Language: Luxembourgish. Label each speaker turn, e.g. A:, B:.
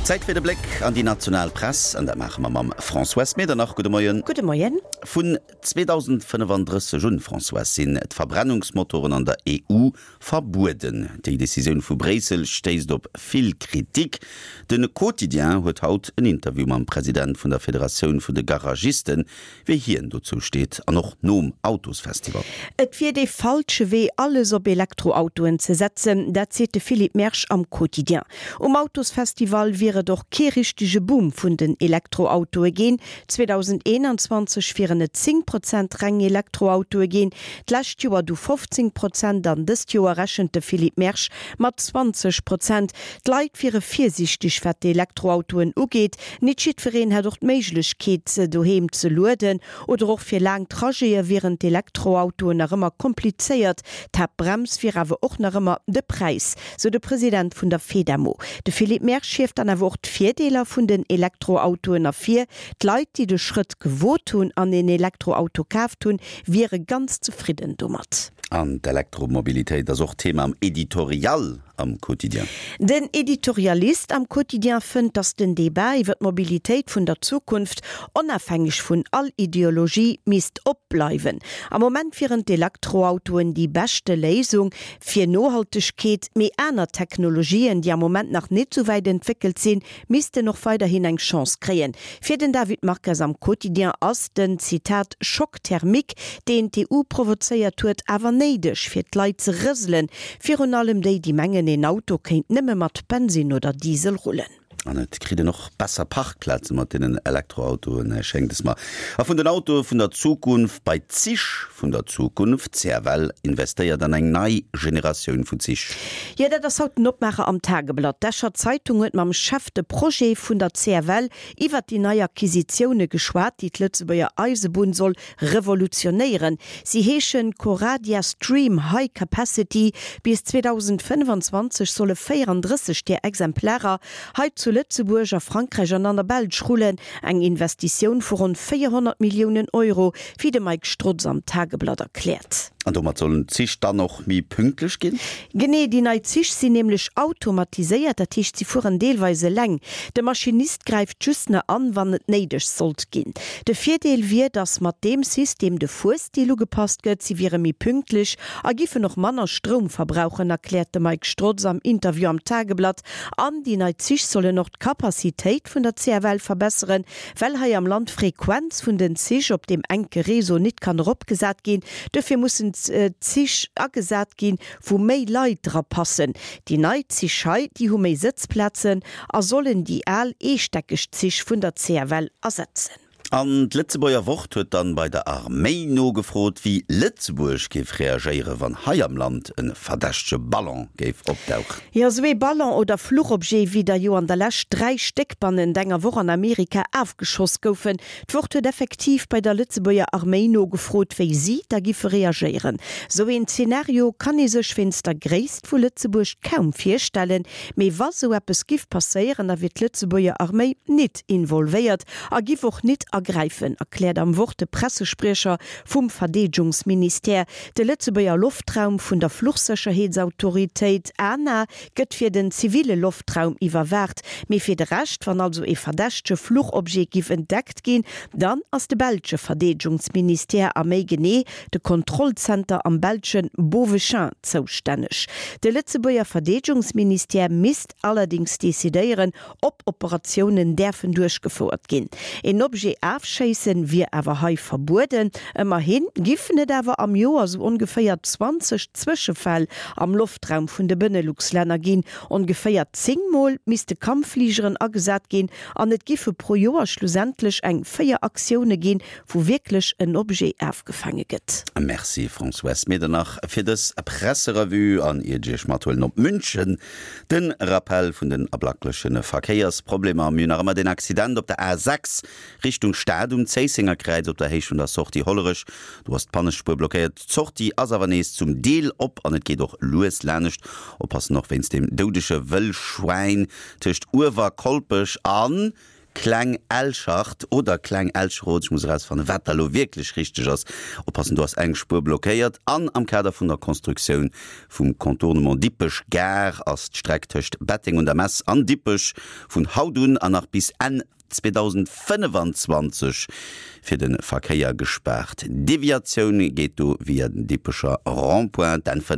A: Zäit fir de Bléck an déi national Press, an dat maache mer mam Françoise Medernach. Gudde Moien.
B: Gudde Moien.
A: Vun 2035 un, Françoise, sinn d'Verbrennungsmotoren an der EU verbueden. Déi Decisioun vu Bréissel stéisst op vill Kritik. De Quotidien huet haut en Interview mam President vun der Federatioun vun de Garagisten, Wéi hien dozou steet an och nom Autosfestival.
B: Et wier dee falsche Wee, alles op Elektroautoen ze setzen, dat seet de Philippe Mersch am Quotidien. Um Autosfestival wier et och kee richtege Boom vun den Elektroautoe ginn. 2021 wieren et 10 Prozent reng Elektroautoe ginn, d'lescht Joer du 15 Prozent an dëst Joer rechent de Philippe Mersch mat 20 Prozent. D'Leit wiere virsiichteg wat d'Elektroautoen ugeet. Nit jiddwereen hätt och d'Méiglechkeet se doheem ze lueden oder och fir laang Trajete wieren d'Elektroautoen nach ëmmer komplizéiert. D'Haaptbrems wier awer och nach ëmmer de Präis, sou de President vun der Fedamo. De Philippe Mersch hieft dann awer och d'Virdeeler vun den Elektroautoen ervir. D'Leit, déi de Schrëtt gewot hunn an een Elektroauto kaaft hunn, wiere ganz zefridden domat.
A: An d'Elektromobilitéit ass och Thema am Editorial am Quotidien.
B: Den Editorialist am Quotidien fënnt, datt den Debat iwwer d'Mobilitéit vun der Zukunft, onafhängeg vun all Ideologie, misst op bleiwen. Am Moment wieren d'Elektroautoen déi beschte Léisung fir Nohaltegkeet, mee aner Technologien, déi am Moment nach net sou wäit entwéckelt sinn, missten och weiderhin eng Chance kréien. Fir den David Marques am Quotidien ass den, Zitat, Choc thermique, deen d'EU provozéiert huet, awer néideg, fir d'Leit ze rëselen, virun allem déi, déi mengen, een Auto kéint nëmme mat Bensinn oder Diesel rullen.
A: An et kritt een och besser Parkplaze mat deenen Elektroautoen, schéngt es mer. A vun den Autoe vun der Zukunft bei d'Zich vun der Zukunft, CFL investéiert an eng nei Generatioun vu Zich.
B: Jo, dat ass haut den Opmaacher am Tageblatt. D'Escher Zeitung huet mam Chef de Projet vun der CFL iwwert déi nei Acquisitioune geschwat, déi d'Lëtzebuerger Eisebunn soll revolutionéieren. Si heeschen Coradia Stream High Capacity. Bis 2025 solle 34 där Exemplarer hei zu Lëtzebuerg, a Frankräich an an der Belsch rullen. Eng Investitioun vu ronn 400 Milliounen Euro, wéi de Mike Strotz am Tageblatt erkläert.
A: An domat sollen d'Zich dann och méi pünktlech ginn?
B: Genee, déi nei Zich sinn nämlech automatiséiert, dat heescht si fueren deelweis eleng. De Maschinist gräift just na an, wann et néideg sollt ginn. De Virdeel wier, datt mat deem System de Fuerstil ugepasst gëtt, si wiere méi pünktlech a giffen och manner Stroum verbrauchen, erkläert de Mike Strotz am Interview am Tageblatt. An déi nei Zich sollen och d'Capacitéit vun der CFL verbesseren, well hei am Land d'Frequenz vun den Zich op deem enke Réseau nit kann eropgesat ginn. Duerfir mussen Zich agesat ginn, wou méi Leit dra passen. Déi nei Zich hei, déi hu méi Sëtzplazen a sollen déi al eestäckeg Zich vun der CFL ersetzen.
A: An d'Lëtzebuerger Wort huet dann bei der Arméi nogefrot, wéi Lëtzebuerg géif reagéieren, wann hei am Land e verdächtege Ballon géif opdauchen.
B: Jo, esou ee Ballon oder Fluchobjet, wéi der jo an der Lescht 3 Stéck bannent enger Woch an Amerika afgeschoss goufen. D'Wort huet effektiv bei der Lëtzebuerger Arméi nogefrot, wéi si da giffe reagéieren. Esou een Zenario kann ee sech wéinst der Gréisst vu Lëtzebuerg kaum virstellen, mee wa sou eppes giff passéieren, da wier d'Lëtzebuerger Arméi nit involvéiert a giff och nit agräifen, erkläert am Wort de Pressespriecher vum Verdeedgungsministère. De Lëtzebuerger Loftraum vun der Fluchsécherheetsautoritéit, ANA, gëtt fir den ziville Loftraum iwwerwaacht, mee fir de Rescht, wann also ee verdächtege Fluchobjet giff entdeckt ginn, dann ass de belsche Verdeedgungsministère a méi genee de Kontrollzenter am belsche Beauvechain zoustänneg. De Lëtzebuerger Verdeedgungsministère misst allerdéngs decidéieren, ob Operatiounen däerfen duerchgefouert ginn. Een Objet afschéissen wier awer hei verbueden. Ëmmerhi giffen et awer am Joer sou ongeféier 20 Zwëschefäll am Loftraum vun de Benelux-Länner ginn. Ongeféier 10 Mol misste Kampffligeren agesat ginn an et giffe pro Joer schlussendlech eng 4 Aktioune ginn, wou wierklech en Objet afgefaange gëtt.
A: Merci Françoise Medernach fir dës Presserevue an iert ech iech mathuelen op München, Den Rappell vun den ablackleche Verkéiersproblemer, Mir hunn nach ëmmer den Accident op der A 6 Richtung Stad um Zéissenger Kräiz op der Héicht vun der Sortie Hollerech. Do ass d'Pannespuer blockéiert. D'Sortie ass awer nees zum Deel op an et geet och lues lanescht. Oppassen och wéinst dem doudege Wëllschwäin tëscht Uewerkolpech a. Kleng Elschart oder Kleng Elcheroth, ech muss erausfannen, wat da lo wierklech richteg ass. Oppassen, do ass eng Spuer blockéiert. An am Kader vun der Constructioun vum Contournement Dippech Gare ass d'Streck tëscht Betteng un der Mess an Dippech vun haut un an nach bis Enn 2025 fir de Verkéier gespaart. Deviatioun geet do via den Dippecher Rond-point, d'N 5.